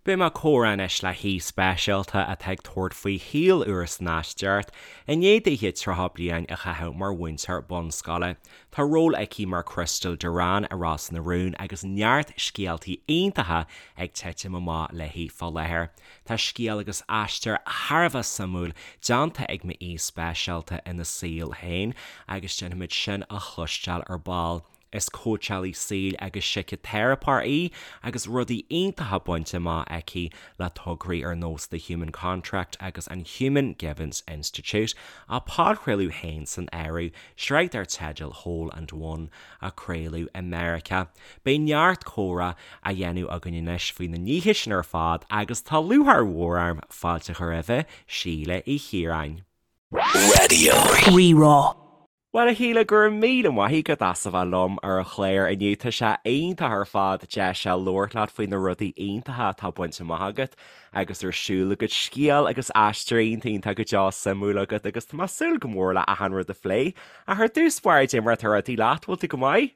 Beidh mé ag comhrá anois le haoi speisialta atá ag tabhairt faoi shaol úr san Aisteoireacht i ndiaidh dithe 30 bliain a chaitheamh mar mhúinteoir bunscoile. Tá ról aici mar Crystal Duran i Ros na Rún agus neart scéaltaí iontacha ag titim amach léi fá láthair. Tá scéal agus aistear thar a bheith suimiúil déanta ag m'aoi speisialta ina saol féin agus déanfaimid sin a chloisteáil ar ball. Is cóitseálaí saoil agus síciteiripeoir í agus rudaí iontacha bainte amach aici le tograí ar nós The Human Contract agus an Human Givens Institute, a podchraoladh féin san áireamh, sraith dar teideal Whole and One a craoladh i Meiriceá. Beidh neart comhrá á dhéanamh againn anois faoi na nithe sin ar fad agus tá lúcháir mhór orm fáilte a chur roimhe, Síle Uí Chiaráin. Raidió Rí-Rá. Bhuel, a Shíle, go raibh míle maith agat as a bheith liom ar an chlár inniu. Tá sé iontach ar fad deis a labhairt leat faoi na rudaí iontacha atá bainte amach agat agus ar siúl agat, scéal agus aistear iontach iontach go deo suimiúil agat agus tá mé ag súil go mór le achan rud a phlé. Ach ar dtús báire, cad é mar atá rudaí leat, bhfuil tú go maith?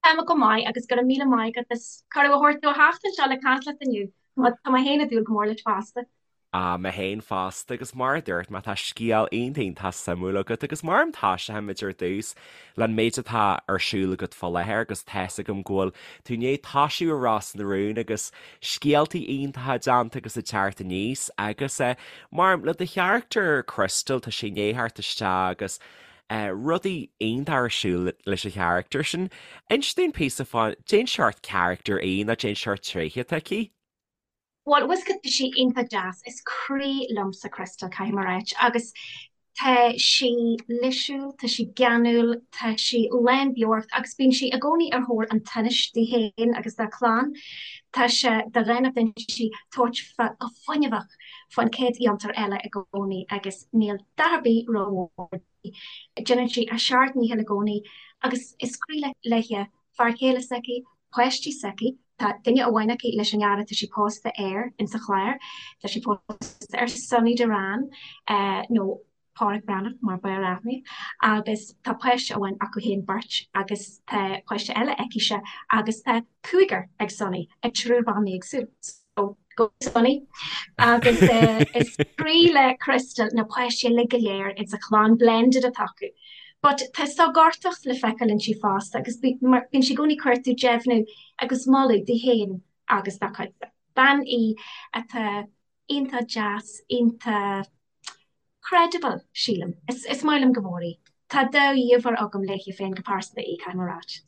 Tá mé go maith agus go raibh míle maith agat as cuireadh a thabhairt domh a theacht anseo le caint leat inniu. Tá mé féin ag dúil go mór leis fosta. Ah, mé féin fosta agus mar a dúirt mé tá scéal iontach iontach suimiúil agat agus mar a thoiseoimid ar dtús leis an méid atá ar siúl agat fá láthair agus tá's agam go bhfuil tú i ndiaidh toisiú i Ros na Rún agus scéaltaí iontacha déanta agus ag teacht aníos agus eh, mar le do charachtar Crystal tá sé i ndiaidh theacht isteach agus eh, rudaí iontacha ar siúl leis an charachtar sin. Inis dúinn píosa fá cén seort charachtar í nó cén seort tréithe atá aici. Bhuel, bhfuil 's agat, tá sí iontach deas. Is croí liomsa Crystal, caithfidh mé a ráit. Agus tá sí lísiúil, tá sí geanúil, tá sí lán beocht agus bíonn sí i gcónaí ar thóir an tsonáis di féin agus dá clann. Tá sé de dhánacht inti tabhairt fá go fuinneamhach fán chéad fhiontar eile i gcónaí agus níl dath ar bith rómhór di. Déanann sí a seacht ndícheall i gcónaí agus is croí léi fear céile s'aici, páistí s'aici, tá duine amháin aici leis an fhear atá sí pósta air insa chlár, tá sí pósta ar Sonny Duran, nó Páraic Breathnach mar b'fhearr aithne, agus tá páiste amháin acu féin beirt agus tá páiste eile aici-se agus tá cúigear ag Sonny, ag triúr ban éagsúil. So, go Sonny. Agus is croí le Crystal na páistí uilig go léir insa chlann blended atá acu. But tá sógartacht le feiceáil inti fosta agus bíonn sí i gcónaí ag cuartú deimhniú agus moladh di féin agus dá cuidse. Bean í atá iontach deas, iontach credible, sílim. Is maith liom go mór í. Tá dea-íomhá agam léi féin go pearsanta í, caithfidh mé a ráit.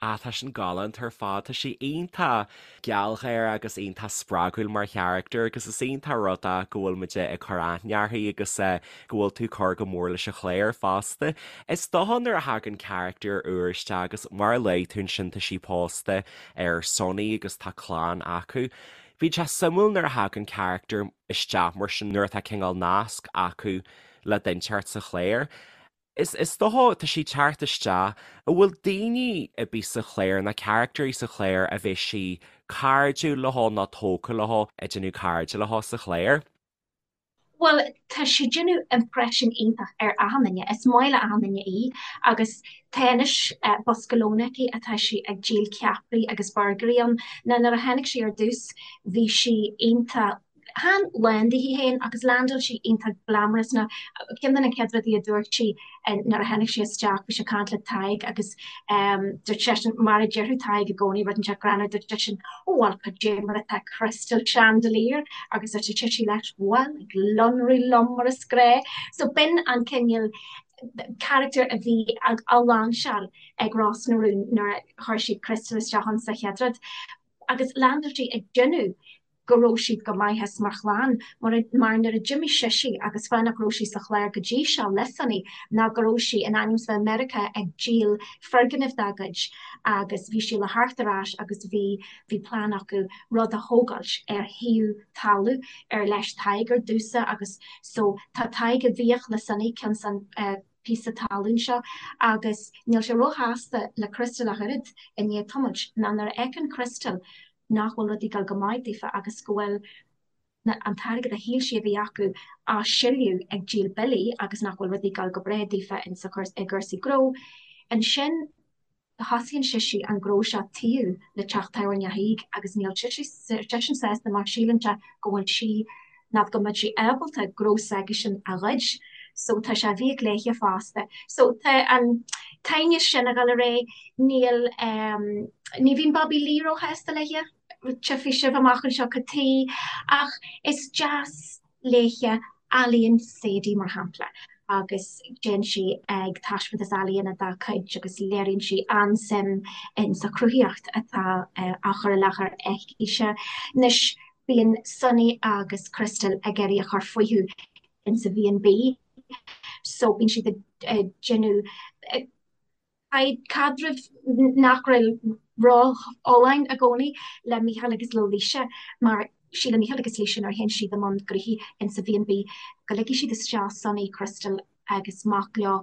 Ah, tá sin galánta ar fad. Tá sí iontach gealgháireach agus iontach spreagúil mar charachtar agus is iontach rud é go bhfuil muid ag cur aithne uirthi agus go bhfuil tú ag cur go mór leis an chlár fosta. Is dócha nuair a thagann carachtar úr isteach agus mar a luaigh tú ansin tá sí pósta ar Sonny agus tá clann acu. Bíonn sé suimiúil nuair a thagann carachtar isteach mar sin nuair atá cineál nasc acu le duine inteacht sa chlár. Is is dócha, tá sí ag teacht isteach, an bhfuil daoine ar bith sa chlár, nó carachtairí sa chlár a bheidh sí cairdiúil leo nó tógtha leo, ag déanamh cairde leo sa chlár? Bhuel, tá sí ag déanamh impression iontach ar achan duine. Is maith le achan duine í agus tá anois bosca lóin aici atá sí ag díol ceapairí agus burgairí ann. Now nuair a tháinig sí ar dtús bhí sí iontach Chan lán di féin agus landáil sí iontach glamorous nó ceann de na chéad rudaí a dúirt sí nuair a tháinig sí isteach, bhí sí ag caint le Tadhg agus dúirt seisean, mar a déarfadh Tadhg i gcónaí, rud inteacht greannmhar, dúirt seisean, Ó bhuel, cad é mar atá Crystal Chandelier? Agus dúirt sise leis, Bhuel, ag lonrú liom mar is gnách. So b'in an cineál character a bhí á lainseáil ag Ros na Rún nuair a chuir siad Crystal isteach ann sa chéad rud. Agus landáil sí ag déanamh go raibh siad go maith as mar chlann, mar mar nuair a d'imigh sise agus fáth nach raibh sí sa chlár go dtí seo le Sonny ná go raibh sí in ainm is bheith i Meiriceá ag díol foirgnimh dá gcuid agus bhí sí le theacht ar ais agus bhí bhí plean acu rud a thógáilt ar thaobh talamh ar leis Tadhg ar dtús agus so tá Tadhg i bhfiach le Sonny cionn san píosa talún seo agus níl sé róshásta le Crystal ach oiread i ndiaidh tamaill ná nuair a fheiceann Crystal nach bhfuil rudaí ag dul go maith daofa agus go bhfuil an t-airgead a shíl sí a bhí acu á sileadh ag díol billí agus nach bhfuil rudaí ag dul go breá daofa insa i gcúrsaí gnó. Ansin. Thosaíonn sise an gnó seo taobh le teach tábhairne Thaidhg agus níl seisean sásta mar síleann sé go bhfuil sí, nó go mbeadh sí ábalta gnó s'aigesean a ghoid. So tá sé i bhfiaich léithe fosta. So tá an t-aighneas sin ag dul ar aghaidh. Níl, ní bhíonn Bobby Lee róshásta léithe, tchífidh sibh amach anseo cad tuige, ach is deas léithe ealaíon Sadie, mar shampla, agus téann sí ag taispeántas ealaíona dá cuid agus léiríonn sí an-suim in sa chruthaíocht atá á chur i láthair aici-se. Anois, bíonn Sonny agus Crystal ag iarraidh a chur fúthu in sa B&B so bíonn siad ag déanamh caidreamh nach bhfuil ró-fholláin i gcónaí le Mícheál agus le Laoise mar síleann Mícheál agus Laoise nuair a théann siad i mbun gnoithí insa B&B go ligfidh siad isteach Sonny, Crystal agus mac leo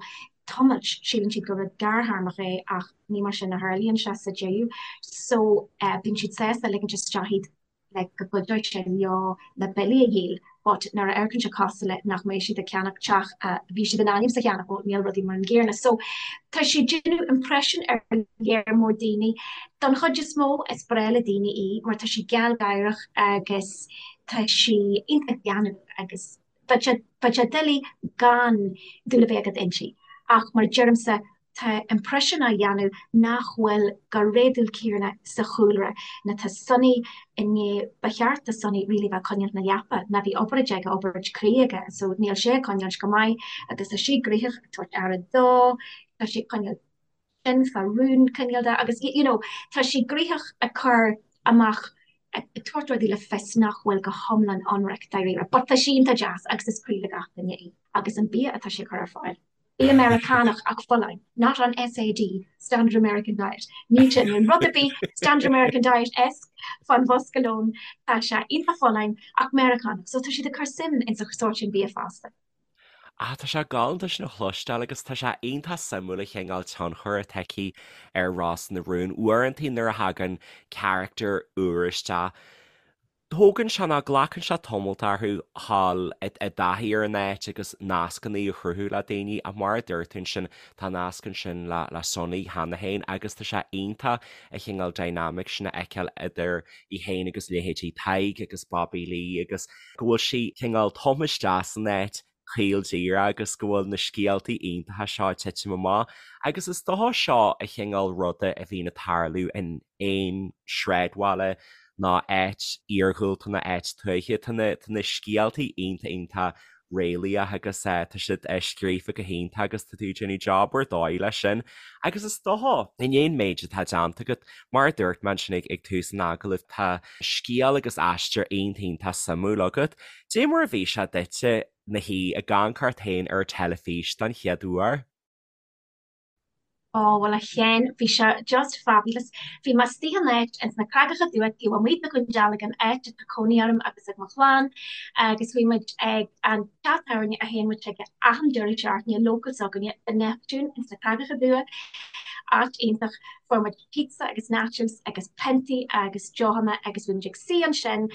tamalt, síleann siad gur rud gearrthéarmach é ach ní mar sin a tharlaíonn sé sa deireadh so bíonn siad sásta ligint isteach iad like go gcuideoidh sé leo na billí a dhíol but nuair a amharcann sé cosúil le nach mbeidh siad ag ceannach teach a bhí siad in ainm is a cheannach, well níl rudaí mar an gcéanna. So tá sí ag déanamh impression ar léar mór daoine. Don chuid is mó is breá le daoine í mar tá sí gealgháireach agus tá sí iontach geanúil agus bheadh sé bheadh sé doiligh gan dúil a bheith agat inti. Ach mar a deirimse Tá impression á dhéanamh nach bhfuil go réadúil céanna sa chúlra ná tá Sonny i ndiaidh, ba cheart do Sonny really bheith ag coinneáilt na leapa ná bhí obráid aige, obráid croí aige so níl sé ag coinneáilt go maith agus tá sí gnoitheach ag tabhairt aire dó, tá sí ag coinneáilt sin fá rún cineál de agus you know tá sí gnoitheach ag cur amach ag tabhairt rudaí le fios nach bhfuil go hiomlán ionraic dáiríre but tá sí iontach deas agus is croí le gach duine í agus an bia atá sí ag cur ar fáil. Bia Meiriceánach ach folláin, not an SAD, Standard American Diet. Níl sé in rud ar bith Standard American Diet-esque fán bhosca lóin, tá sé iontach folláin ach Meiriceánach, so tá siad ag cur suim in sa sórt sin bia fosta. Ah, tá sé galánta sin a chloisteáil agus tá sé iontach suimiúil an chineál tionchair atá aici ar Ros na Rún. Uaireanta nuair a thagann carachtar úr isteach, Tógann sé nó glacann sé tamalt orthu dhul i dtaithí ar an áit agus nascanna a chruthú le daoine ach mar a dúirt tú ansin tá nasc ansin le le Sonny cheana féin agus tá sé iontach an chineál dynamic sin a fheiceáil idir í féin agus leithéidí Tadhg agus Bobby Lee agus go bhfuil sí cineál tumtha isteach san áit caol díreach agus go bhfuil na scéaltaí iontacha seo ag titim amach agus is dócha seo an chineál ruda a bhíonn ag tarlú in aon sráidbhaile nó áit iarghúlta nó áit tuaithe. Tá na tá na scéaltaí iontach iontach réalaíoch agus tá siad scríofa go hiontach agus tá tú ag déanamh job ar dóigh leis sin. Agus is dócha, i ndiaidh an méid atá déanta agat, mar a dúirt mé ansin ag tús an agallaimh, tá scéal agus aistear iontach iontach suimiúil agat. Dé mar a bhí sé duitse na shuí ag amharc ort féin ar an teilifís don chéad uair? Ó, bhuel a Sheáin, bhí sé just fabulous. Bhí mé istigh in áit ins na Creagacha Dubha taobh amuigh de Dhún Dealgan, áit atá cónaí orm agus ag mo chlann, agus bhí muid ag an teach tábhairne a théann muid chuige achan deireadh seachtaine, local s'againne, The Neptune ins na Creagacha Dubha, áit iontach. Fuair muid pizza agus nachos agus piontaí agus deochanna agus bhí muid ag suí ansin,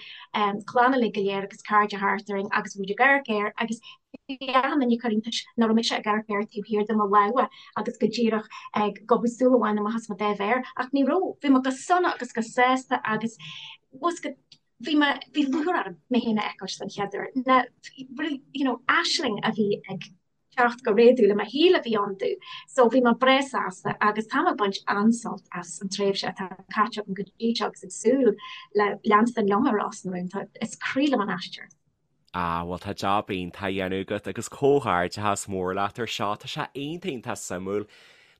clann uilig go léir agus cairde thart orainn agus bhí muid ag amharc air agus bhí achan duine ag cur iontais nach raibh mise ag amharc air taobh thiar de mo lámha agus go díreach ag gobadh súil amháin amach as mo dá mhéar ach ní raibh, bhí mé go sona agus go sásta agus go bhí mé, bhí lúcháir orm mé féin a fheiceáil den chéad uair. Na, you know, aisling a bhí ag teacht go réadúil i mo shaol a bhí ann domh. So bhí mé breá sásta agus tá mé ag baint an-sult as an tréimhse atá caite agam go dtí seo agus ag súil le leanstan liom ar Ros na Rún. Tá, is croí liom an aistear. Ah, bhuel tá jab iontach á dhéanamh agat agus comhghairdeachas mór leat ar seo. Tá sé iontach iontach suimiúil.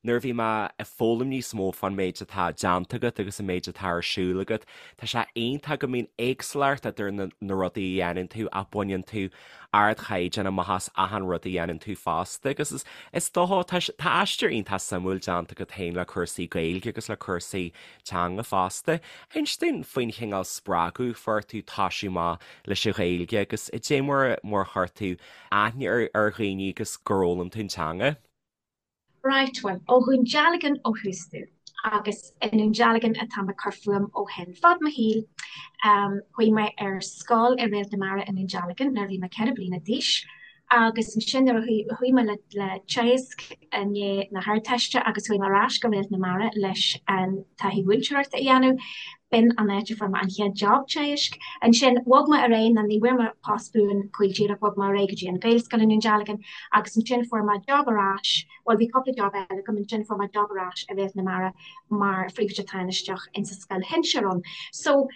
Nuair a bhí mé ag foghlaim níos mó fán méid atá déanta agat agus an méid atá ar siúl agat, tá sé iontach go mbíonn éagsúlacht idir na na rudaí a dhéanann tú ach baineann tú ardchaighdeán amach as achan rud a dhéanann tú fosta agus is is dócha tá tá aistear iontach suimiúil déanta agat féin le cúrsaí Gaeilge agus le cúrsaí teanga fosta. Inis dúinn faoin chineál spreagadh a fuair tú toisiú amach leis an Ghaeilge agus dé mar mar a chuir tú aithne ar ar dhaoine agus gur fhoghlaim tú an teanga. Right, bhuel, ó Dhún Dealgan ó thús domh, agus i nDún Dealgan atá mé ag cur fúm ó shin. Fad mo shaoil, chuaigh mé ar scoil i Réalt na Mara i nDún Dealgan nuair a bhí mé 4 bliana d'aois. Agus ansin nuair a chuaigh mé le Teagasc i ndiaidh na hArdteiste agus chuaigh mé ar ais go Réalt na Mara leis an taithí mhúinteoireachta a dhéanamh, b'in an áit a fuair mé an chéad job teagaisc. Ansin bhog mé ar aghaidh, nó ní bhfuair mé post buan caol díreach, bhog mé ar aghaidh go dtí an Ghaelscoil i nDún Dealgan agus ansin fuair mé job ar ais, bhuel bhí cúpla job eile agam, ansin fuair mé job ar ais i Réalt na Mara mar phríomhoide tánaisteach insa scoil shinsir ann. So.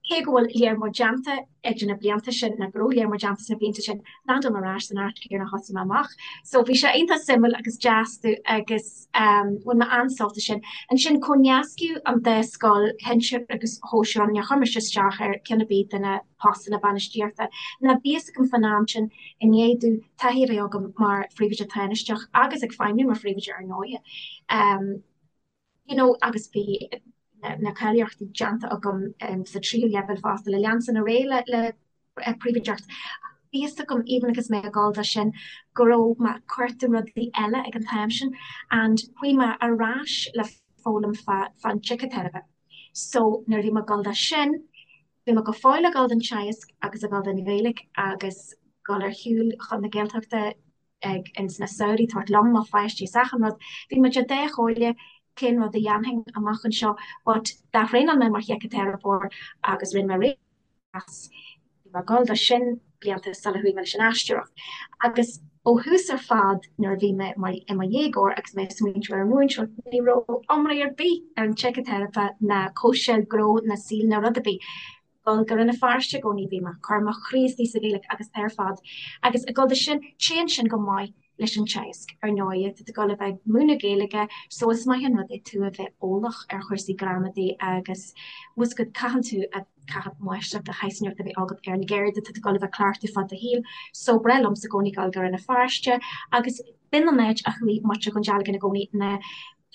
Cé go bhfuil léar mór déanta idir na blianta sin, nó go raibh léar mór déanta sna blianta sin, landáil mé ar ais san áit chéanna a thosaigh mé amach. So bhí sé iontach suimiúil agus deas domh agus bhain mé an-sult as sin. Ansin comhnascadh an dá scoil, shinsir agus shóisir ann, níor chuir mise isteach ar ceann ar bith de na postanna bainistíochta. Ná bhí fhios agam fán am sin, i ndiaidh domh taithí a bheith agam mar phríomhoide tánaisteach agus ag feidhmiú mar phríomhoide ar ndóighe, you know agus bhí na cáilíochtaí déanta agam sa tríú leibhéal fosta le leanstan ar aghaidh le príomhoideacht. Bhí fhios agam even agus mé ag dul do sin go raibh mé ag cuartú rudaí eile ag an t-am sin and chuaigh mé ar ais le foghlaim fán tsíciteiripe. So nuair a bhí mé ag dul do sin, bhí mé go fóill ag dul don teagasc agus ag dul don Ghaeilge agus dul ar shiúl chun na Gaeltachta ag ins na samhraí tabhairt liom mo pháistí is achan rud. Bhí muid ar dá chomhairle cén rud a dhéanfainn amach anseo but d'ath-thraenáil mé mar shíciteiripeoir agus rinne mé réidh as. Bhí mé ag dul do sin blianta sula chuaigh mé leis an aisteoireacht. Agus ó thús ar fad nuair a bhí mé mar i mo dhéagóir agus mé ag smaointiú ar an mhúinteoireacht ní raibh iomrá ar bith ar an tsíciteiripe ná cóitseáil gnó ná saoil ná rud ar bith. dul go Rann na Feirste i gcónaí bhí mé ag cur mo chroí istigh sa Ghaeilge agus ar fad agus ag dul do sin téann sin go maith leis an teagasc ar ndóighe tá tú ag dul a bheith ag múineadh Gaeilge so is maith an rud é tú a bheith eolach ar chúrsaí gramadaí agus bhfuil go caitheann tú a caithfidh máistreacht de shaghas inteacht a bheith agat ar an gceird atá tú ag dul a bheith ag cleachtadh fad do shaoil so breá liomsa i gcónaí dul go Rann na Feirste agus b'in an áit a chuaigh muintir Dhún Dealgan i gcónaí na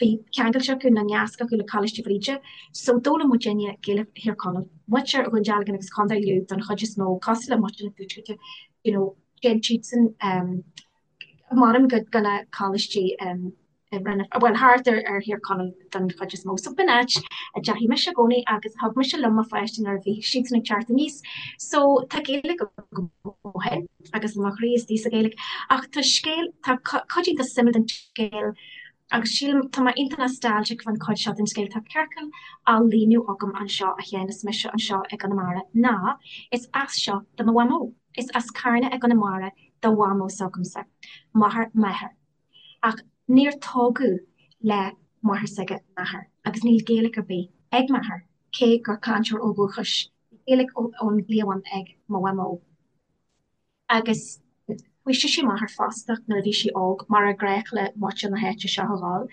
Bhí ceangailte acu nó nasc acu le Coláiste Bhríde so d'fhoghlaim muidinne Gaeilge Thír Chonaill, muintir Dhún Dealgan agus Contae Lú don chuid is mó, cosúil le muintir an Tuaiscirt, you know, téann siadsan mairim go go na coláistí bhuel thart ar ar Thír Chonaill don chuid is mó. So b'in áit a dteachaigh mise i gcónaí agus thug mise liom mo pháistí nuair a bhí siadsan ag teacht aníos. So tá Gaeilge agam ó shin agus mo chroí istigh sa Ghaeilge. Ach tá scéal, tá cuid iontach suimiúil den scéal Agus sílim, tá mé iontach nostalgic fán chuid seo den scéal, tá ciorcal á líonadh agam anseo a Sheáin is mise anseo i gConamara, ná is as seo do mo mhamó. Is as Carna i gConamara do mhamó s'agamsa, máthair m'athar. Ach níor tógadh le máthair s'aige m'athair agus níl Gaeilge ar bith ag m'athair, cé gur cainteoir ó dhúchais, bhí Gaeilge ón gcliabhán ag mo mhamó. Agus chuaigh sise amach ar fostach nuair a bhí sí óg, mar ar gnách le muintir na háite seo a dhul,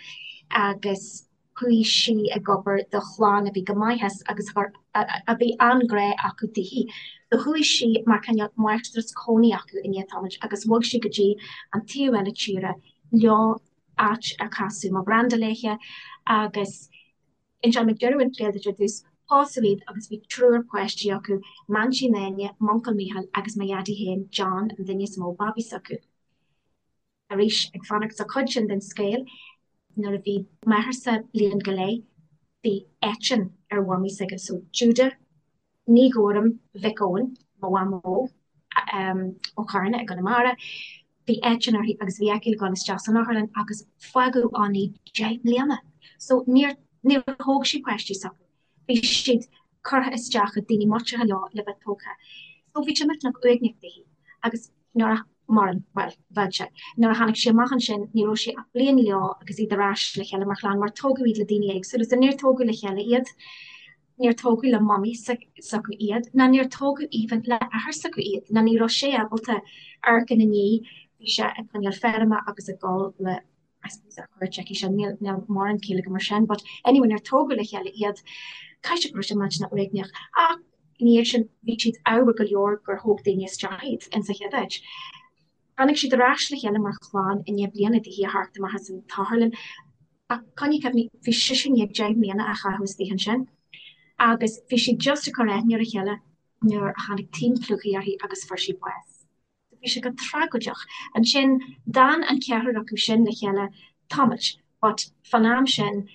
agus chuaigh sí ag obair do chlann a bhí go maith as agus a bhí an-ghrá acu daoithi. So chuaigh sí mar cineál máistreás cónaí acu i ndiaidh tamaill agus bhog sí go dtí an taobh eile tíre leo, áit ar casadh mo ghranda léithe agus Inseoidh mé deireadh an scéil duit ar dtús. Pósadh iad agus bhí triúr páistí acu, m'aintín Áine, m'uncail Mícheál agus mo dhaidí féin, John, an duine is mó babaí s'acu. Arís, ag fanacht sa chuid sin den scéal, nuair a bhí m'athairse bliain go leith, bhí eitinn ar mhamaí s'aige, so Judah, Ní Ghuairim Mhic Eoin, mo mhamó, ó Charna i gConamara. Bhí eitinn uirthi agus bhí aici le dhul isteach san otharlann agus fágadh ann í 10 mbliana. So níor, níor thóg sí páistí s'acu. Bhí siad curtha isteach ag daoine muinteartha leo le bheith tógtha. So bhí sé millteanach uaigneach daoithi agus nuair a, mairim, bhuel, bheadh sé. Nuair a tháinig sí amach ansin ní raibh sí ach bliain leo agus iad ar ais le chéile mar chlann mar tógadh iad le daoine éagsúla so níor tógadh le chéile iad. Níor tógadh le mamaí s'acu iad, ná níor tógadh even le athair s'acu iad, ná ní raibh sé ábalta amharc ina ndiaidh, bhí sé ag coinneáil feirme agus ag dul le, I suppose ar cuairt aici sin, níl, níl mórán ciall agam ar sin, but anyway níor tógadh le chéile iad, caithfidh sé go raibh sé millteanach uaigneach. Ach ina dhiaidh sin bhí siad ádhmhar go leor gur thóg daoine isteach iad insa chéad áit. Tháinig siad ar ais le chéile mar chlann i ndiaidh bliana daoithi a theacht amach as an t-otharlann. Ach coinnigh cuimhne, bhí sise i ndiaidh 10 mbliana a chaitheamh istigh ansin agus bhí siad just ag cur aithne ar a chéile nuair a tháinig taom plúchaidh uirthi agus fuair sí bás. So bhí sé go tragóideach. Ansin d'fhan an ceathrar acu sin le chéile tamaill but fán am sin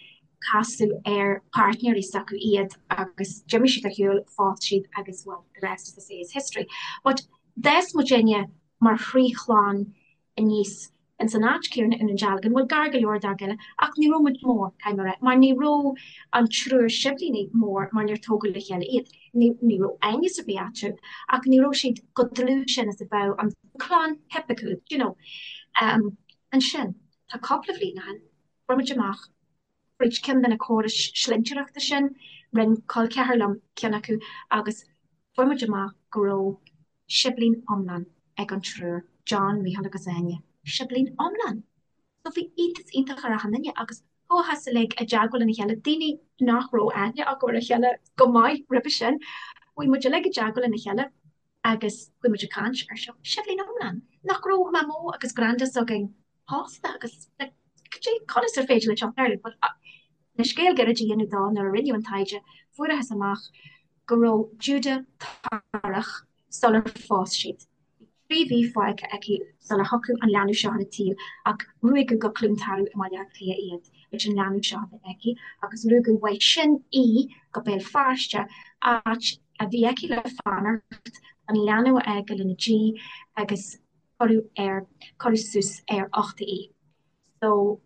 casadh ar páirtnéirí s'acu iad agus d'imigh siad ar shiúl, phós siad agus well the rest as they say is history. But d'fhás muidinne. mar thrí chlann aníos ins an áit céanna i nDún Dealgan, bhuel gar go leor dá chéile, ach ní raibh muid mór, caithfidh mé a rá, mar ní raibh an triúr siblíní mór mar níor tógadh le chéile iad. Ní ní raibh aighneas ar bith eatarthu ach ní raibh siad chomh dlúth sin is a bheadh an clann thipiciúil, do you know. Ansin, tá cúpla bhliain ó shin, fuair muid amach fríd ceann de na córais slinnteoireachta sin, rinn col ceathar liom ceann acu agus fuair muid amach go raibh siblín iomlán ag an triúr, John, Mícheál agus Áine. Siblín iomlán! So bhí iontas iontach ar achan duine agus chuathas uilig i dteagmháil lena chéile, daoine nach raibh aithne acu ar a chéile go maith roimhe sin, chuaigh muid uilig i dteagmháil lena chéile agus chuaigh muid ag caint ar seo, siblín iomlán! Nach raibh Mamó agus Granda s'againn pósta agus like cad é, conas ar féidir leis seo tarlú? But le scéal gairid a dhéanamh dó, nuair a rinneadh an taighde, fuarathas amach go raibh Juda torrach sular phós siad. Bhí 3 mhí fágtha aici sular thiocfadh an leanbh seo ar an tsaol ach ruaigeadh go Cluain Tarbh i mBaile Átha Cliath iad leis an leanbh seo a bheith aici agus ruaigeadh uaidh sin í go Béal Feirste, áit a bhí aici le fanacht, an leanbh a fhágáil ina diaidh agus cuireadh ar, cuireadh suas ar uchta í. So,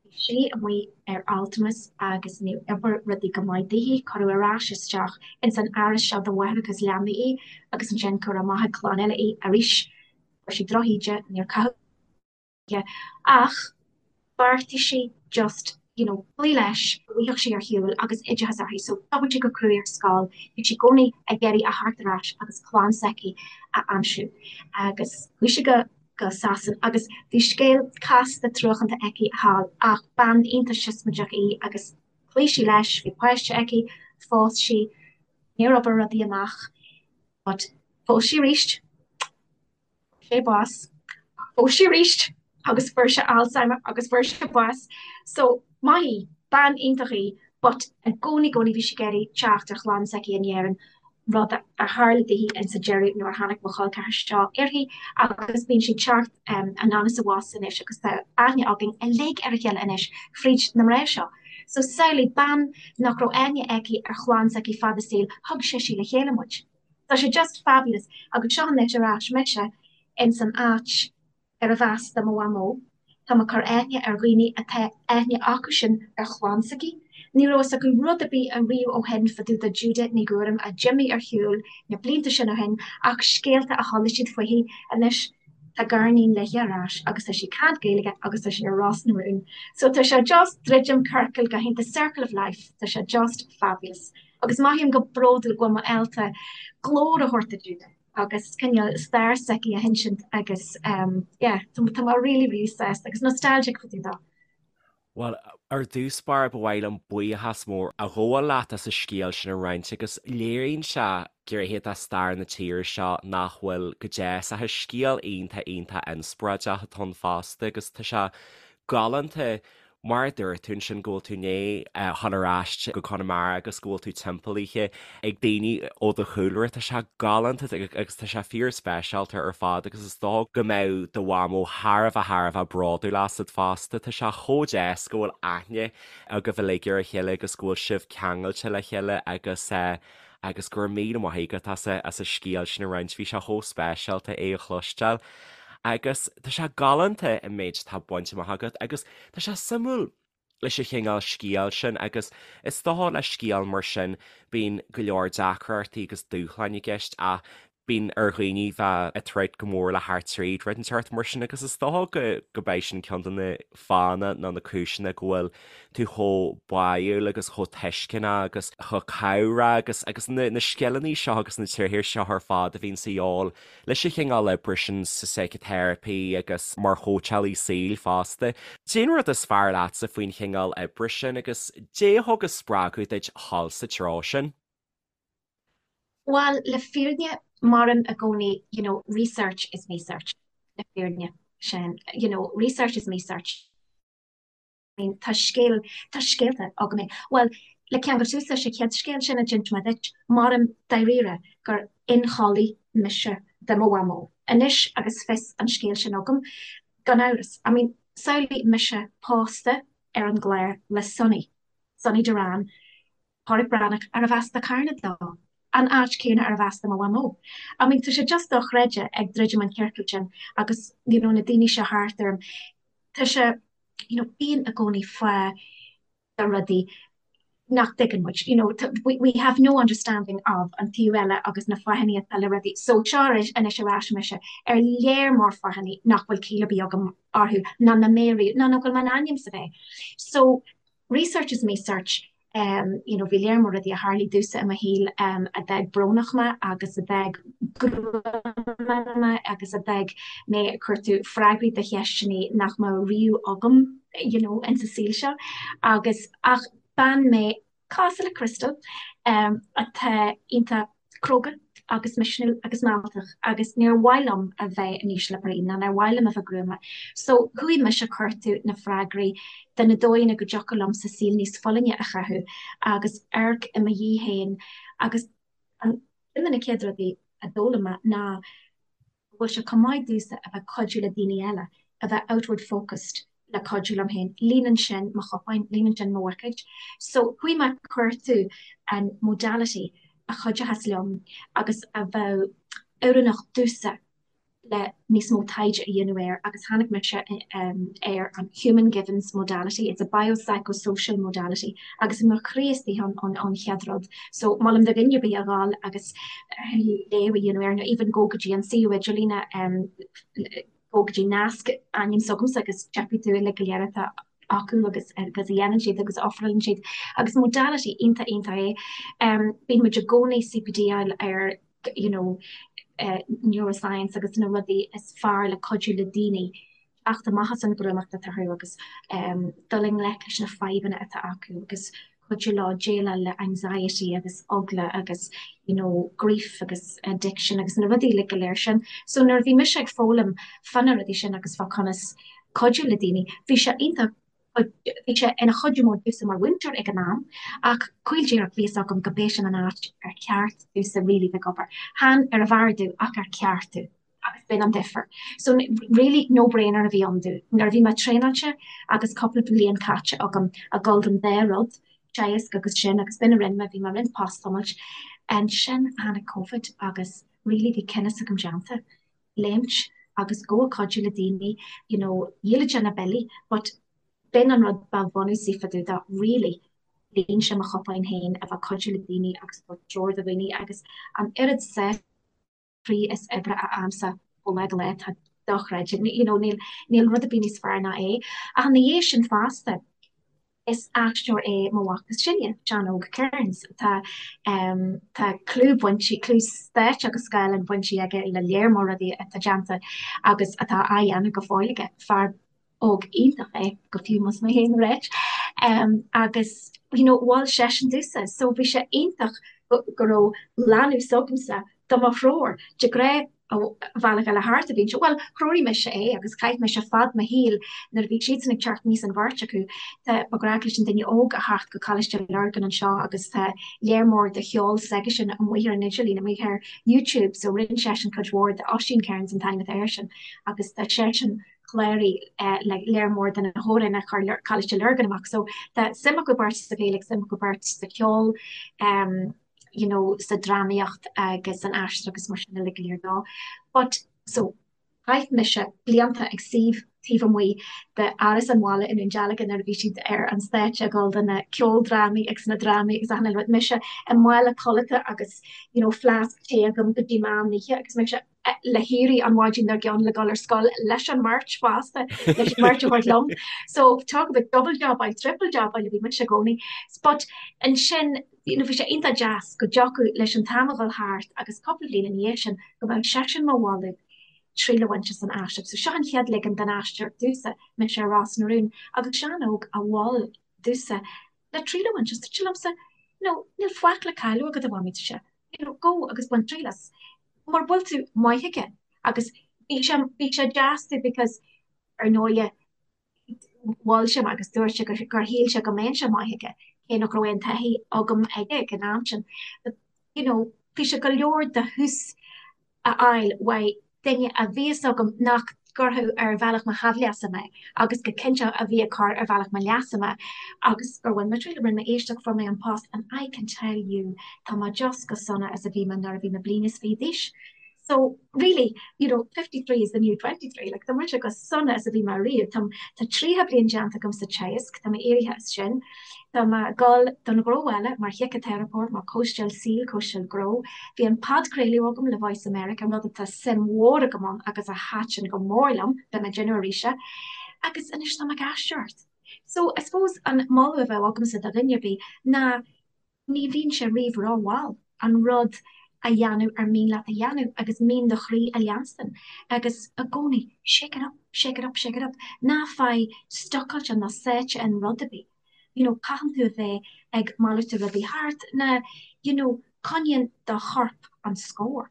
bhí sí amuigh ar altramas agus níor oibir rudaí go maith daoithi, cuireadh ar ais isteach ins an áras seo do mháithreacha is leanaí í agus ansin cuireadh amach ag clann eile í arís. Fuair sí drochíde, níor caitheadh. Ach bheartaigh sí just, you know, cloí leis, go bhfaigheadh sí ar shiúl agus oideachas uirthi. So d'obair sí go cruaidh ar scoil, bhí sí i gcónaí ag iarraidh a theacht ar ais agus clann s'aici a aimsiú. Agus chuaigh sí go go Sasain agus bhí scéal casta truacánta aici thall ach bean iontach siosmaideach í agus chloígh sí leis, bhí páiste aici, phós sí, níor obair rudaí amach but phós sí arís. sé bás. Phós sí arís agus fuair sé Alzheimer agus fuair sé bás. So, maith í, bean iontach í, but i gcónaí, gcónaí bhí sí ag iarraidh teacht ar chlann s'aici in Éirinn, rud a tharla daoithi insa deireadh nuair a tháinig mo chol ceathar seo uirthi agus bíonn sí ag teacht anonn is abhus anois agus tá aithne againn uilig ar a chéile anois fríd na mná seo. So samhlaigh, bean nach raibh aithne aici ar chlann s'aici fad a saoil, thug sise le chéile muid. Tá sé just fabulous agus seo anois ar ais mise ins an áit arbh as do mo mhamó. Tá mé ag cur aithne ar dhaoine atá aithne acusan ar chlann s'aici. Ní raibh fhios acu rud ar bith ariamh ó shin fá dtaobh de Juda Ní Ghuairim a d'imigh ar shiúl na blianta sin ó shin ach scéalta a chuala siad fuithi. Anois tá gariníon léi ar ais agus tá sí ag caint Gaeilge agus tá sí ar Ros na Rún. So tá sé just druidim ciorcal go hiontach, circle of life, tá sé just fabulous. Agus mothaím go bródúil go bhfuil mé ábalta glór a thabhairt do Juda agus cineál stair s'aici a hinsint agus yeah, tá mé really, really sásta agus nostalgic fá dtaobh dó. Bhuel, ar dtús báire ba mhaith liom buíochas mór a ghabháil leat as an scéal sin a roinnt agus léiríonn sé gnéithe de stair na tíre seo nach bhfuil go deas ach is scéal iontach iontach inspioráideach atá ann fosta agus tá sé galánta Mar a dúirt tú ansin go bhfuil tú i ndiaidh dhul ar ais go Conamara agus go bhfuil tú timpeallaithe ag daoine ó do chúlra, tá sé galánta agus tá sé fíorspeisialta ar fad agus is dóigh go mbeadh do mhamó thar a bheith thar a bheith bródúil asat fosta. Tá sé chomh deas go bhfuil aithne agaibh uilig ar a chéile agus go bhfuil sibh ceangailte le chéile agus agus go raibh míle maith agat as as an scéal sin a roinnt, bhí sé chomh speisialta é a chloisteáil. Agus tá sé galánta an méid atá bainte amach agat agus tá sé suimiúil leis an chineál scéal sin agus is dócha le scéal mar sin bíonn go leor deacrachtaí agus dúshláin i gceist ach bíonn ar dhaoine bheith ag troid go mór le theacht tríd rud inteacht mar sin agus is dócha go go mbeidh sin ceann de na fáthanna nó na cúiseanna go bhfuil tú chomh báúil agus chomh tuisceanach agus chomh cabhrach agus agus na na scileanna seo agus na tréithe seo ar fad a bhíonn sa dhíobháil leis an chineál oibre sin sa síciteiripe agus mar chóitseálaí saoil fosta. Cén rud is fearr leatsa faoin chineál oibre sin agus cad é a thug an spreagadh duit dhul sa treo sin? Bhuel, le fírinne, mairim i gcónaí, you know, research is me search, le fírinne, sin, you know, research is me search. I mean, tá scéal, tá scéalta agam é. Bhuel, le ceangal suas leis an chéad scéal sin a d'inis mé duit, mairim dáiríre gur ionchollaí mise de mo mhamó. Anois agus fios an scéil sin agam, gan amhras, I mean, samhlaigh mise pósta ar an gclár le Sonny, Sonny Doran, Pádraic Breathnach, arbh as do Carna dó. An áit céanna arbh as do mo mhamó. I mean tá sé just dochreidte ag druidim an ciorcal sin agus you know na daoine seo thart orm tá sé you know bíonn i gcónaí fáth do rudaí nach dtuigeann muid you know we, we have no understanding of an taobh eile agus na fáthanna atá le rudaí so seo anois ar ais mise ar léar mór fáthanna nach bhfuil ciall ar bith agam orthu ná na méaraí ná nach bhfuil mé in ainm is a bheith so research is me search you know bhí léar mór rudaí a tharlaigh domhsa i mo shaol a d'fhág brónach mé agus a d'fhág gruama mé agus a d'fhág mé ag cuartú freagraí do cheisteanna nach mbeadh riamh agam you know insa saol seo agus ach bean mé cosúil le Crystal atá iontach cróga agus misniúil agus mealltach agus níor mhaith liom a bheith in ísle brí ná níor mhaith liom a bheith gruama. So chuaigh mise ag cuartú na freagraí de na dóigheanna go dtiocfadh liomsa saol níos folláine a chaitheamh agus amharc i mo dhiaidh féin agus an ceann de na chéad rudaí a d'fhoghlaim mé ná go bhfuil sé chomh maith domhsa a bheith ag cuidiú le daoine eile, a bheith outward focused le cuidiú liom féin. Líonann sin mo chupán, líonann sin mo bhuicéid. So chuaigh mé ag cuartú an modality a chuideochas liom agus a bheadh oiriúnach domhsa le níos mó taighde a dhéanamh air agus tháinig mise ar an Human Givens modality, it's a biopsychosocial modality agus i mo chroí istigh ann an chéad rud. So molaim do dhuine ar bith a dhul agus léamh a dhéanamh air nó even go go dtí an suíomh idirlíne go go dtí nasc ainm s'agamsa agus feicfidh tú uilig go léir atá acu agus agus a dhéanann siad agus a ofrálann siad agus modality iontach iontach é. Bíonn muid i gcónaí CPD-áil ar you know neuroscience agus na rudaí is fearr le cuidiú le daoine teacht amach as an ghruamacht atá orthu agus dul i ngleic leis na fadhbanna atá acu agus cuidiú leo déileáil le anxiety agus eagla agus you know grief agus addiction agus na rudaí uilig go léir sin. So nuair a bhí mise ag foghlaim fá na rudaí sin agus fá conas cuidiú le daoine, bhí sé iontach bhí sé ina chuidiú mór domhsa mar mhúinteoir ag an am ach caol díreach bhí fhios agam go b'é sin an áit ar cheart domhsa really bheith ag obair. Chan ar an bhfearr domh ach ar ceart domh. agus b'in an difear. So really no brainer a bhí ann domh. Nuair a bhí mé traenáilte agus cúpla bliain caite agam ag dul don dá rud, teagasc agus sin, agus b'in a rinne mé, bhí mé ag roinnt post-tiomáint. Ansin tháinig Covid agus really bhí cinneadh s'agam déanta, léimt agus go ag cuidiú le daoine, you know, dhíol sé na billí but b'in an rud ba bhunúsaí fá dtaobh de really, líon sé mo chupán féin a bheith ag cuidiú le daoine agus ag tabhairt treoir do dhaoine agus an oiread sásamh croí is oibre a fhaighimse ó lá go lá, tá dochreidte, you know, níl, níl rud ar bith níos fearr ná é. Ach ina dhiaidh sin fosta, is aisteoir é mo mhac is sine, Seán Óg Kearns, tá, em, tá clú bainte, clú stáitse agus scáileáin bainte aige le léar mór rudaí atá déanta agus atá á dhéanamh go fóill aige, fear óg iontach é, go fiú más mé féin a ráit. Agus you know mhol seisean domhsa so bhí sé iontach go raibh leanbh s'agamsa do mo threoir. De ghnáth an bealach eile thart a bhíonn sé, bhuel threoraigh mise é agus chaith mise fad mo shaoil nuair a bhí siadsan ag teacht aníos an bheirt acu. Tá ba ghnách leis an duine óg a theacht go Coláiste Lurgan anseo agus tá léar mór de cheol s'aigesean amuigh ar an idirlíon, amuigh ar YouTube so rinne seisean cuid mhór de Oisín Kearns an t-ainm atá airsean agus tá seisean cláraithe le léar mór de na hamhráin a chuir Coláiste Lurgan amach. So tá suim acu beirt sa Ghaeilge, suim acu beirt sa cheol, you know, sa drámaíocht agus san aisteoireacht agus mar sin uilig go léir dó. But, so, chaith mise blianta ag suí taobh amuigh d'Áras an Bhaile i nDún Dealgan nuair a bhí siad ar an stáitse ag dul do na ceoldrámaí agus na drámaí agus achan uile rud. Mise i mála codlata agus, you know, fleasc tae agam go dtí meán oíche agus mise le héirí an mhaidin dár gcionn le dul ar scoil leis an mbeirt fosta, leis an mbeirt a thabhairt liom. So talk about double jobáil, triple jobáil a bhí mise i gcónaí. But ansin, you know, bhí sé iontach deas go dtiocfadh leis an t-am a dhul thart agus cúpla bliain ina dhiaidh sin go mbeadh seisean mo mholadh triail a bhaint as an aisteoireacht. So seo an chéad ligean den aisteoireacht domhsa, mise ar Ros na Rún agus Seán Óg a mhol domhsa le triail a bhaint as. Dúirt sé liomsa, you know, níl faic le cailleadh agat a mhamaí, dúirt sé, you know, go agus bain triail as. Mura bhfuil tú maith aige agus bhí sé, bhí sé deas domh because ar ndóighe mhol sé mé agus dúirt sé gur, gur shíl sé go mbeinnse maith aige, cé nach raibh aon taithí agam aige ag an am sin. But, you know, bhí sé go leor de thús a fháil uaidh duine a bhí fhios agam nach. gcuirfeadh ar bhealach mo haimhleasa mé agus go cinnte a bhí ag cur ar bhealach mo leasa mé agus gur bhain mé triail, rinne mé éisteacht, fuair mé an post and I can tell you tá mé just chomh sona is a bhí mé nuair a bhí mé bliain is fiche d'aois. So really, you know, 53 is the new 23, like tá mise chomh sona is a bhí mé riamh. Tá tá 30 bliain déanta agam sa teagasc, tá mé éirithe as sin. Tá mé ag dul don ghnó eile mar shíciteiripeoir, mar chóisteáil saoil, cóisteáil gnó. Bhí an podchraoladh agam le Voice America, rud atá suim mhór agam ann agus a thaitin go mór liom, beidh mé ag déanamh arís é. Agus anois tá mé ag aisteoireacht. So, I suppose an moladh a bheadh agamsa do dhuine ar bith ná ní bhíonn sé riamh rómhall an rud a dhéanamh ar mian leat a dhéanamh agus mian do chroí a leanstan agus i gcónaí shake it up, shake it up, shake it up. Ná faigh stucáilte ná sáite in rud ar bith. You know, caitheann tú a bheith ag malartú rudaí thart ná you know, coinníonn do chorp an scór.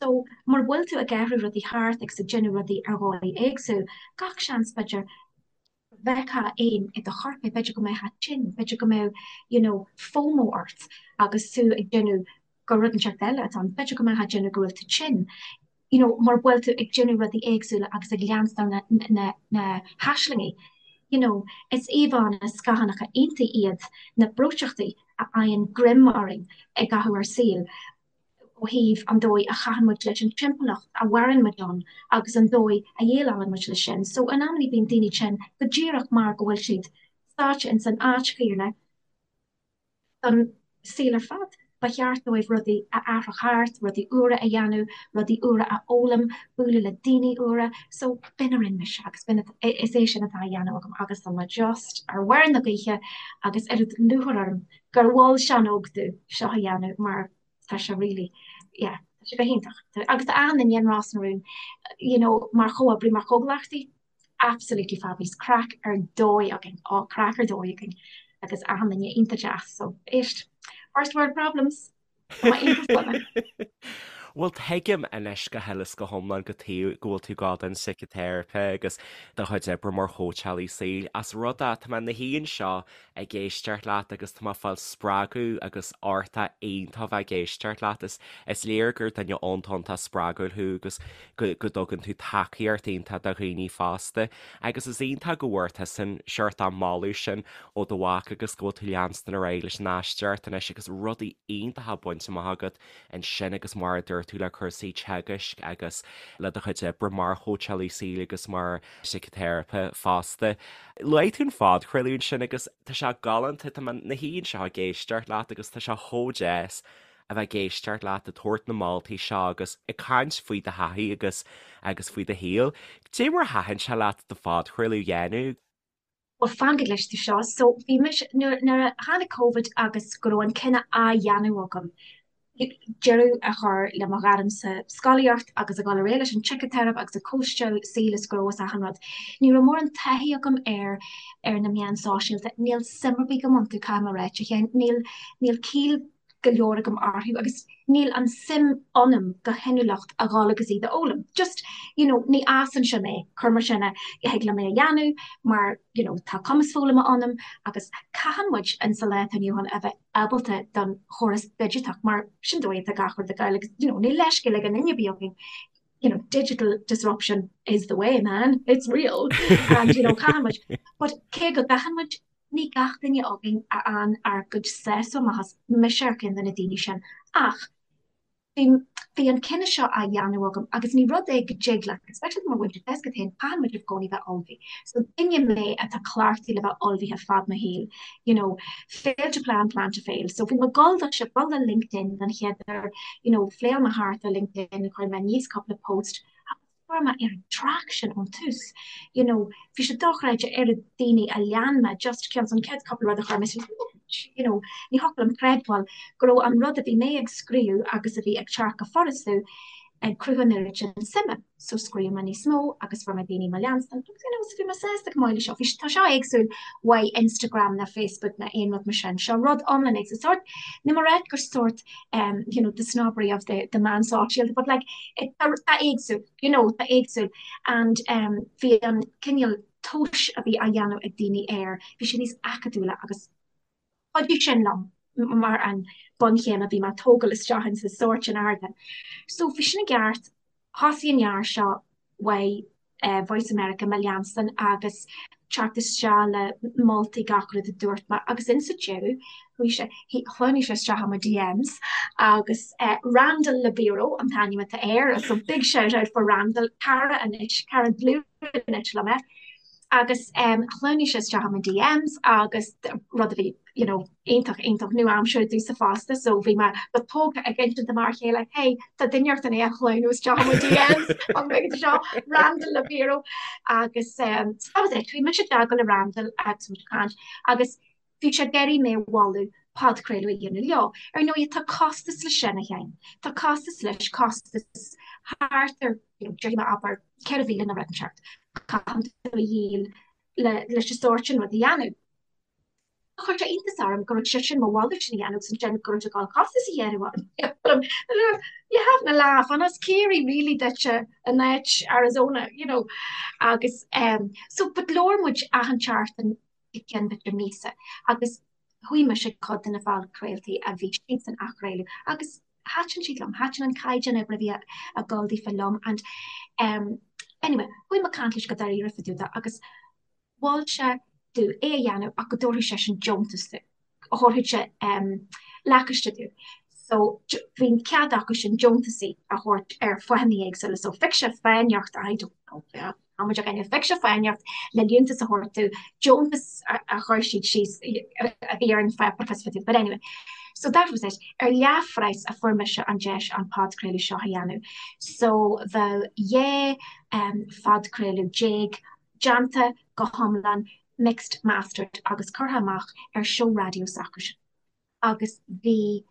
So, mura bhfuil tú ag athrú rudaí thart agus ag déanamh rudaí ar dhóigh éagsúil, gach seans b'fhéidir go bhfeicfeá éan i do chorp é, b'fhéidir go mbeifeá tinn, b'fhéidir go mbeadh you know FOMO ort agus tú ag déanamh gur rud inteacht eile atá ann, b'fhéidir go mbeifeá ag déanamh go bhfuil tú tinn, you know mura bhfuil tú ag déanamh rudaí éagsúla agus ag leanstan na, na, na haislingí. You know, is íomhánna scáthánacha iontaí iad na breoiteachtaí a fhaigheann greim orainn i gcaitheamh ár saoil. ó thaobh an dóigh a chaitheann muid leis an timpeallacht a mhaireann muid ann agus an dóigh a dhéileálann muid leis sin. So in amannaí bíonn daoine tinn go díreach mar go bhfuil siad sáite ins an áit chéanna don saol ar fad. Ba cheart dóibh rudaí a athrach thart, rudaí úra a dhéanamh, rudaí úra a fhoghlaim, bualadh le daoine úra. So b'in a rinne mise agus b'in is é sin atá á dhéanamh agam agus tá mé just ar bharr na gaoithe agus oiread lúcháir orm gur mhol Seán Óg domh seo a dhéanamh mar tá sé really, yeah, tá sé go hiontach. Agus tá achan duine in Ros na Rún, you know, mar chomhoibrí, mar chomhghleacaithe, absolutely fabulous, craic ar dóigh againn, á, craic ar dóigh againn agus achan duine iontach deas, so éist, first world problems, tá mé iontach sona. Bhuel, tuigim anois go huile is go hiomlán cad chuige go bhfuil tú ag gabháil don síciteiripe agus do chuid oibre mar chóitseálaí saoil. As rud é, tá mé ina shuí anseo ag éisteacht leat agus tá mé ag fáil spreagadh agus ardú iontach bheith ag éisteacht leat. Is is léir gur duine iontach iontach spreagúil thú agus go go dtugann tú tacaíocht iontach do dhaoine fosta. Agus is iontach go bhfuair tusa an seort an moladh sin ó do mhac agus go bhfuil tú leanstan ar aghaidh leis an aisteoireacht anois agus rudaí iontacha bainte amach agat ansin agus mar a dúirt tú le cúrsaí teagaisc agus le do chuid oibre mar chóitseálaí saoil agus mar síciteiripe fosta. Luaigh tú an phodchraoladh ansin agus tá sé galánta, tá mé ina shuí anseo ag éisteacht leat agus tá sé chomh deas a bheith ag éisteacht leat ag tabhairt na moltaí seo agus ag caint faoi do thaithí agus agus faoi do shaol. Cad é mar a thaitin sé leat do phodchraoladh a dhéanamh? Bhuel, fan go gcloisfidh tú seo. So, bhí mise, nuair, nuair a tháinig Covid agus go raibh an cinneadh á dhéanamh agam deireadh a chur le mo ghairm sa scolaíocht agus a dhul ar aghaidh leis an tsíciteiripe agus ag cóisteáil saoil is gnó is achan rud. Ní raibh mórán taithí agam ar ar na meáin sóisialta. Níl suim ar bith agam iontu, caithfidh mé a ráit, a Sheáin. Níl níl ciall go leor agam orthu agus níl an suim ionam go hinniúlacht a dhul agus iad a fhoghlaim. Just, you know, ní fhásann sé mé, cuir mar sin é, thig liom é a dhéanamh mar, you know, tá cumas foghlama ionam agus caitheann muid in sa lá atá inniu ann a bheith ábalta don chóras digiteach mar sin dóigh atá gach rud ag gabháil agus you know níl leithscéal ag aon duine ar bith againn you know digital disruption is the way man it's real and you know caitheann muid but cé go gcaitheann muid ní gach duine againn a fhaigheann ár gcuid sásamh amach as mise ar cheann de na daoine sin ach Bhí, bhí an cinneadh seo á dhéanamh agam agus ní rud é go dtig leat, especially mar mhúinteoir tá a fhios agat féin, caitheann muid i gcónaí bheith ullmhaithe. So duine mé atá cleachtaithe le bheith ullmhaithe fad mo shaoil, you know, fail to plan, plan to fail. So bhí mé ag dul do seo, dul le LinkedIn don chéad uair, you know, phléáil mé thart ar LinkedIn, chuir mé aníos cúpla post agus fuair mé oiread traction ón tús, you know, bhí sé dochreidte oiread daoine a lean mé just cionn is an chéad cúpla rud a chuir mé suas, you know, ní thiocfadh liom creidbheáil go raibh an rud a bhí mé ag scríobh agus a bhí ag teacht go furasta ag cruthú an oiread sin suime. So scríobh mé níos mó agus fuair mé daoine mo leanstan agus you know, so bhí mé sásta go maith le seo. Bhí tá seo éagsúil uaidh Instagram ná Facebook ná aon rud mar sin. Seo rud iomlán éagsúil. Sort, ní mar gur sort um, you know, the snobbery of the, the meán sóisialta, but like, it, tá éagsúil, you know, tá éagsúil. And um, bhí an cineál tomhais a bhí á dhéanamh ag daoine air, bhí sé níos acadúla agus chuidigh sin liom mar an bunchéim a bhí mé ag tógáil isteach in sa sórt sin ardán. So bhí sin i gceart, thosaigh an fhear seo uaidh. Voice America mo leanstan agus teacht isteach le moltaí gach rud a dúirt mé agus insa deireadh chuaigh sé, shleamhnaigh sé isteach i mo DMs agus Randall Libero an t-ainm atá air so big shout out for Randall, cara anois, cara dlúth anois liom é agus shleamhnaigh sé isteach i mo DMs agus rud a bhí you know, iontach, iontach nua-aimseartha domhsa fosta so bhí mé go tógtha ag insint do m'fhear chéile hey tá duine inteacht i ndiaidh a shleamhnú isteach i mo DMs an bhfuil seo Randall Libero agus um, so that was it. Bhí mise i dteagmháil le Randall agus muid ag caint agus bhí sé ag iarraidh mé a mholadh podchraoladh a dhéanamh leo. Ar ndóigh tá costas leis sin a Sheáin. Tá costas leis, costas thart ar you know, déarfaidh mé abair 4,000 nó rud inteacht. Caitheann tú a dhíol le leis an sórt sin rud a dhéanamh. Chuir sé iontas orm go raibh seisean mo mholadh sin a dhéanamh agus ansin go raibh sé ag dul costas a dhéanamh orm. You having a laugh an as Ciarraí really duitse in áit Arizona, you know. Agus um, so but labhair muid achan tseachtain go ceann b'fhéidir míosa agus chuaigh mise ag cuid de na podchraoltaí a bhí siadsan a chraoladh agus thaitin siad liom, thaitin an caighdeán oibre a bhí ag dul daofa liom and um, anyway, chuaigh mé ag caint leis go dáiríre fá dtaobh de agus mhol sé domh é a dhéanamh ach go dtabharfadh seisean deontas domh, thabharfadh sé lacáiste domh. So bhí an cead acu sin deontasaí a thabhairt ar fáthanna éagsúla. So phioc sé fáth inteacht, I don't know, tá muid againne, phioc sé fáth inteacht le liúntas a thabhairt domh, deontas a chuir siad síos a bhí ar an pháipéar, but anyway. So that was it. Ar leathphraghas a fuair mise an deis an podchraoladh seo a dhéanamh. So bheadh 12 phodchraoladh déanta go hiomlán mixed, mastered agus curtha amach ar seó raidió s'acusan agus bhí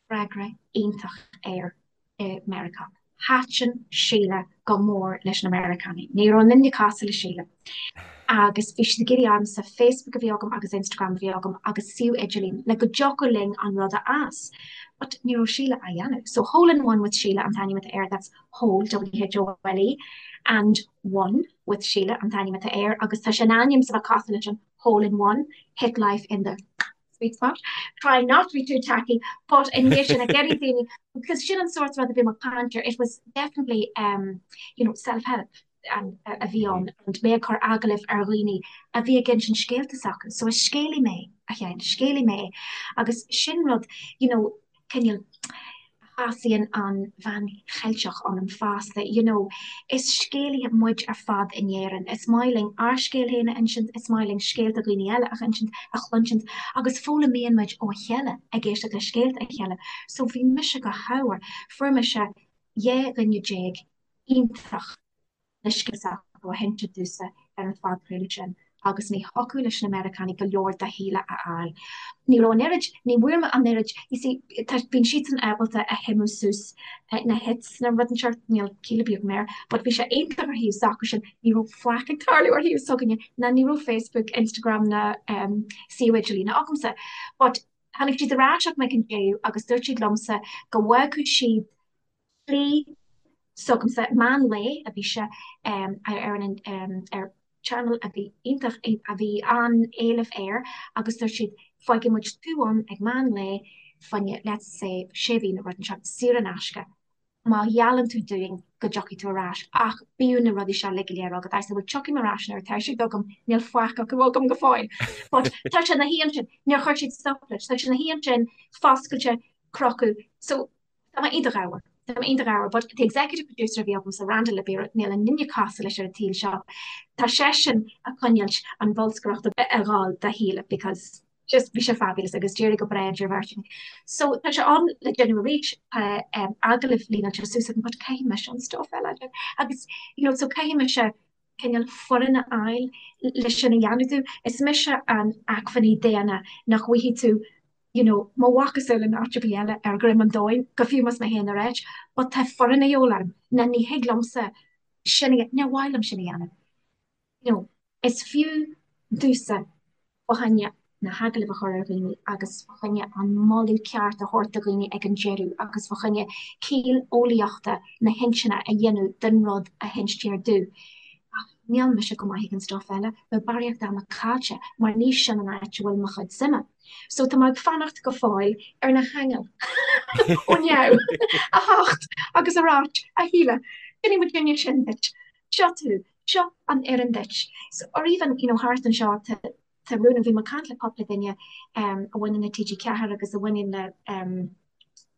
freagra iontach air i Meiriceá. Thaitin Síle go mór leis na Meiriceánaigh. Ní raibh aon duine cosúil le Síle. Agus bhí siad ag iarraidh ormsa Facebook a bhí agam agus Instagram a bhí agam agus suíomh idirlín le go dtiocfadh linn an rud a fhás. But ní raibh Síle á dhéanamh. So Hole in One with Síle an t-ainm atá air, that's Hole, W-H-O-L-E, and One with Síle an t-ainm atá air agus tá sé in ainm is a bheith cosúil leis an hole in one, hit life in the sweet spot. Try not to be too tacky, but i ndiaidh sin ag iarraidh daoine, because sin an sórt rud a bhí mé ag caint air, it was definitely um, you know, self-help and a bhí ann and mé ag cur agallaimh ar dhaoine a bhí ag insint scéalta s'acu. So is scéalaí mé, a Sheáin, scéalaí mé agus sin rud, you know, cineál a shásaíonn an bhean Cheilteach ionam fosta, you know. Is scéalaithe muid ar fad in Éirinn. Is maith linn ár scéal féin a insint, is maith linn scéalta dhaoine eile a insint, a chluinsint agus foghlaimíonn muid ó a chéile ag éisteacht le scéalta a chéile. So bhí mise go hámhar, fuair mise 12 dhuine iontach. le scéal s'acu a hinsint domhsa ar an phodchraoladh sin agus ní thiocfadh leis na Meiriceánaigh go leor de Shíle a fháil. Ní raibh an oiread, ní bhfuair mé an oiread, you see, tá, bíonn siadsan ábalta a shuimiú suas na hits na rud inteacht, níl ciall ar bith agam air, but bhí sé iontach ar thaobh s'acusan, ní raibh faic ag tarlú ar thaobh s'againne, ná ní raibh Facebook, Instagram ná suíomh idirlíne agamsa. But tháinig siad ar ais chuig mé ag an deireadh agus dúirt siad liomsa go bhfágfadh siad slí s'agamsa, meán lae a bhí sé ar an ar channel a bhí iontach, a bhí an-éileamh air agus dúirt siad fágfaidh muid tú ann ag meán lae fá choinne let's say sé mhí nó rud inteacht saor in aisce má gheallann tú dúinn go dtiocfaidh tú ar ais ach bíodh na rudaí seo uilig go léir agat. I said well tiocfaidh mé ar ais nuair atá siad agam, níl faic acu agam go fóill. But tá sé ina shuí ansin, níor chuir siad stop leis, tá sé ina shuí ansin foscailte, crochadh, so Tá mé iontach ádhmhar. Tá mé iontach ádhmhar. But the executive producer a bhí agamsa, Randall Libero, níl aon duine cosúil leis ar an tsaol seo. Tá seisean ag coinneáilt an bholscaireacht ag gabháil do Shíle because just bhí sé fabulous agus d'éirigh go breá idir an bheirt againn. So tá sé ann le déanamh arís, tá agallaimh líneáilte suas agam but caithfidh mise an stuff eile a dhéanamh agus you know so caithfidh mise cineál foireann a fháil le sin a dhéanamh domh. Is mise an acmhainní daonna nach bhfaighidh tú you know, mo mhacasamhail in áit ar bith eile ar dhroim an domhain, go fiú más mé féin ar áit, but tá foireann a dhíobháil orm, ná ní thig liomsa sin a, níor mhaith liom sin a dhéanamh. You know, is fiú domhsa fá choinne na hagallaimh a chur ar dhaoine agus fá choinne an moladh ceart a thabhairt do dhaoine ag an deireadh agus fá choinne ciall eolaíochta na hintinne a dhéanamh den rud a hinstear domh. Ach níl mise go maith ag an stuff eile, bheadh barraíocht ama caillte mar ní sin an áit a bhfuil mo chuid suime. So tá mé ag fanacht go fóill ar na haingil ó neamh a theacht agus a ráit, a Shíle, déanfaidh muidinne sin duit. Seo tú. Seo an fhoireann duit. So, or even, you know, thart anseo tá tá rún, bhí mé ag caint le cúpla duine a bhaineann le TG4 agus a bhaineann le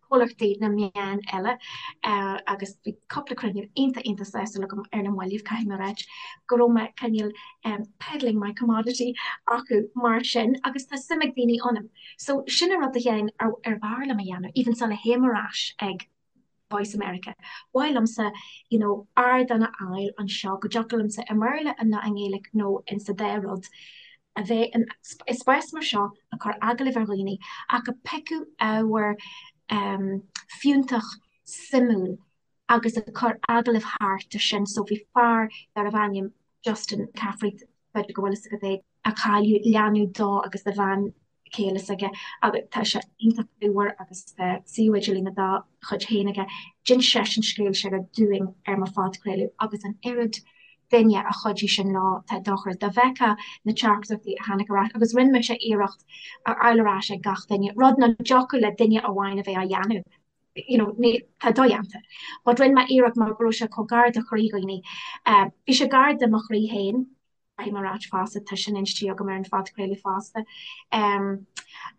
comhlachtaí na meán eile agus bhí cúpla cruinniú iontach iontach sásúil agam ar na mallaibh, caithfidh mé a ráit, go raibh mé cineál peddling my commodity acu mar sin agus tá suim ag daoine ionam. So sin an rud a Sheáin ar ar bhfearr liom a dhéanamh, even sula théim ar ais ag Voice America. Ba mhaith liomsa you know ardán a fháil anseo go dtiocfadh liomsa i mBéarla nó i nGaeilge nó in sa dá rud a bheith in i spás mar seo ag cur agallaimh ar dhaoine ach ag piocadh ábhar fiúntach suimiúil agus ag cur agallaimh thart ar sin. So bhí fear darbh ainm Justin Caffrey, b'fhéidir go bhfuil fhios agat é, a cailleadh leanbh dó agus do bhean chéile s'aige agus tá sé iontach bríomhar agus tá suíomh idirlín dá chuid féin aige. D'inis seisean scéal s'aige dúinn ar mo phodchraoladh agus an oiread duine a chuidigh sin leo, tá dochreidte. Dá bhfeicfeá na teachtaireachtaí a tháinig ar ais agus rinne mise iarracht a fháil ar ais ag gach duine, rud nach dtiocfadh le duine amháin a bheith á dhéanamh, you know, ní, tá dodhéanta. But rinne mé iarracht mar go raibh sé chomh gar do chroí dhaoine. Bhí sé gar do mo chroí féin. Caithfidh mé a ráit fosta, tá sin inste agam ar an phodchraoladh fosta.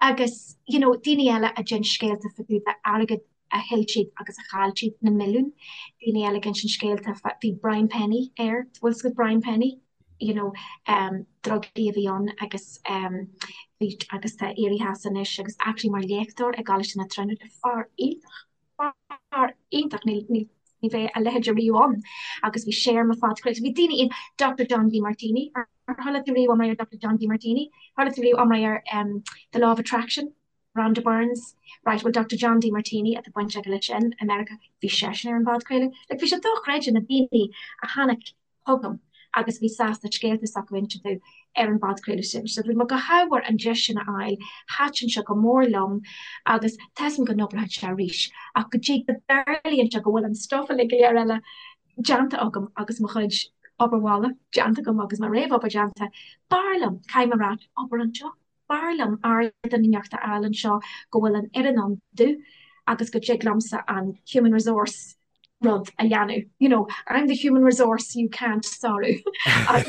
Agus, you know, daoine eile a d'inis scéalta fá dtaobh d'airgead a thuill siad agus a chaill siad, na milliúin. Daoine eile ag insint scéalta fá, bhí Brian Penny air, bhfuil fhios agat Brian Penny? You know, drugaí a bhí ann agus bhí, agus tá éirithe as anois agus actually mar léachtóir i gColáiste na Tríonóide, fear iontach. Fear iontach, ní bheidh a leithéid ariamh ann. Agus bhí sé ar mo phodchraoladh. Bhí daoine in Doctor John Demartini, ar chuala tú riamh iomrá ar Doctor John Demartini? Chuala tú riamh iomrá ar The Law of Attraction? Rhonda Burns? Right, well Doctor John Demartini atá baint aige leis sin i Meiriceá, bhí seisean ar an bpodchraoladh. Like bhí sé dochreidte na daoine a tháinig chugam agus a bhí sásta scéalta s'acu a insint domh ar an bpodchraoladh sin. So bhí mé go hádhmhar an deis sin a fháil, thaitin sé go mór liom agus tá 'fhios a'm go n-oibreoidh sé arís ach go dtí go dtarlaíonn sé go bhfuil an stuff uilig go léir eile déanta agam agus mo chuid obair bhaile déanta agam agus mo réamhobair déanta, b'fhearr liom, caithfidh mé a ráit, obair anseo. B'fhearr liom ardán inteacht a fháil anseo go bhfuil an fhoireann ann domh agus go dtig liomsa an human resource rud a dhéanamh. You know, I'm the human resource you can't sárú.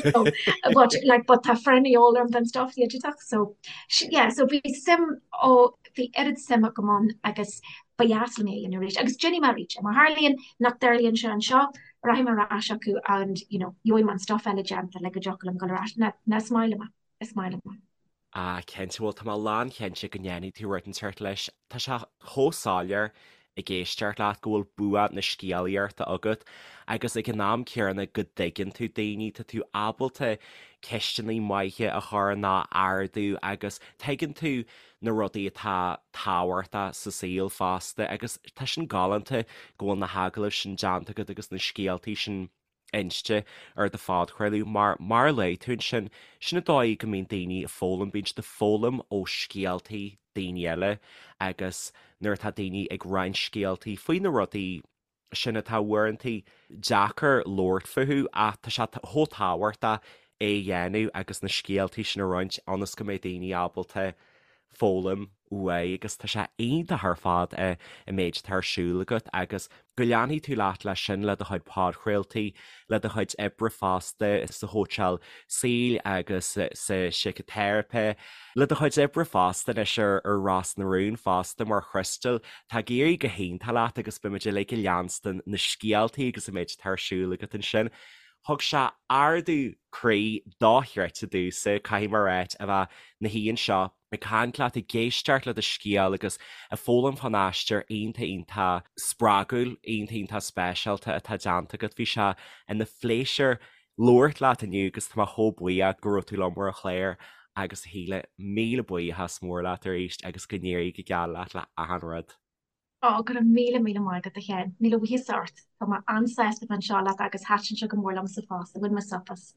You know, but like but tá foireann de dhíobháil orm don stuff digiteach so yeah, so bhí suim ó bhí oiread suim agam ann agus ba dheas liom é a dhéanamh arís agus déanfaidh mé arís é. Má tharlaíonn nach dtarlaíonn sé anseo, rachaidh mé ar ais acu and you know, gheobhaidh mé an stuff eile déanta le go dtiocfadh liom dul ar ais. Ná is maith liom é. Is maith liom é. Ah, cinnte, bhuel tá mé lánchinnte go ndéanfaidh tú rud inteacht leis. Tá sé chomh soiléir ag éisteacht leat go bhfuil bua na scéalaíochta agat agus ag an am céanna go dtuigeann tú daoine, tá tú ábalta ceisteanna maithe a chur nó a ardú agus tuigeann tú na rudaí atá tábhachtach sa saol fosta agus tá sin galánta go bhfuil na hagallaimh sin déanta agat agus na scéaltaí sin inste ar do phodchraoladh mar, mar a luaigh tú ansin, sin an dóigh go mbíonn daoine ag foghlaim, bíonn siad ag foghlaim ó scéaltaí daoine eile agus nuair atá daoine ag roinnt scéaltaí faoi na rudaí sin atá uaireanta deacair labhairt fúthu ach tá sé chomh tábhachtach é a dhéanamh agus na scéaltaí sin a roinnt ionas go mbeidh daoine ábalta foghlaim uaidh agus tá sé iontach ar fad an méid atá ar siúl agat agus go leanfaidh tú leat leis sin le do chuid podchraoltaí, le do chuid oibre fosta sa chóitseáil saoil agus sa síciteiripe, le do chuid oibre fosta anois ar Ros na Rún fosta mar Chrystal. Tá ag éirí go hiontach leat agus beimid uilig ag leanstan na scéaltaí agus an méid atá ar siúl agat ansin. Thug sé ardú croí dochreidte domhsa, caithfidh mé a ráit, a bheith 'na shuí anseo ag caint leat, ag éisteacht le do scéal agus ag foghlaim fán aistear iontach iontach spreagúil, iontach iontach speisialta atá déanta agat. Bhí sé ina phléisiúr labhairt leat inniu agus tá mé chomh buíoch go raibh tú liom ar an chlár agus a Shíle, míle buíochas mór leat arís agus go n-éirí go geal leat le achan rud. Ó, go raibh míle míle maith agat, a Sheáin. Míle buíochas ort. Tá mé an-sásta bheith anseo leat agus thaitin sé go mór liomsa fosta. Bhain mé súp as.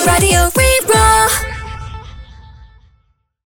Raidió Rí-Rá.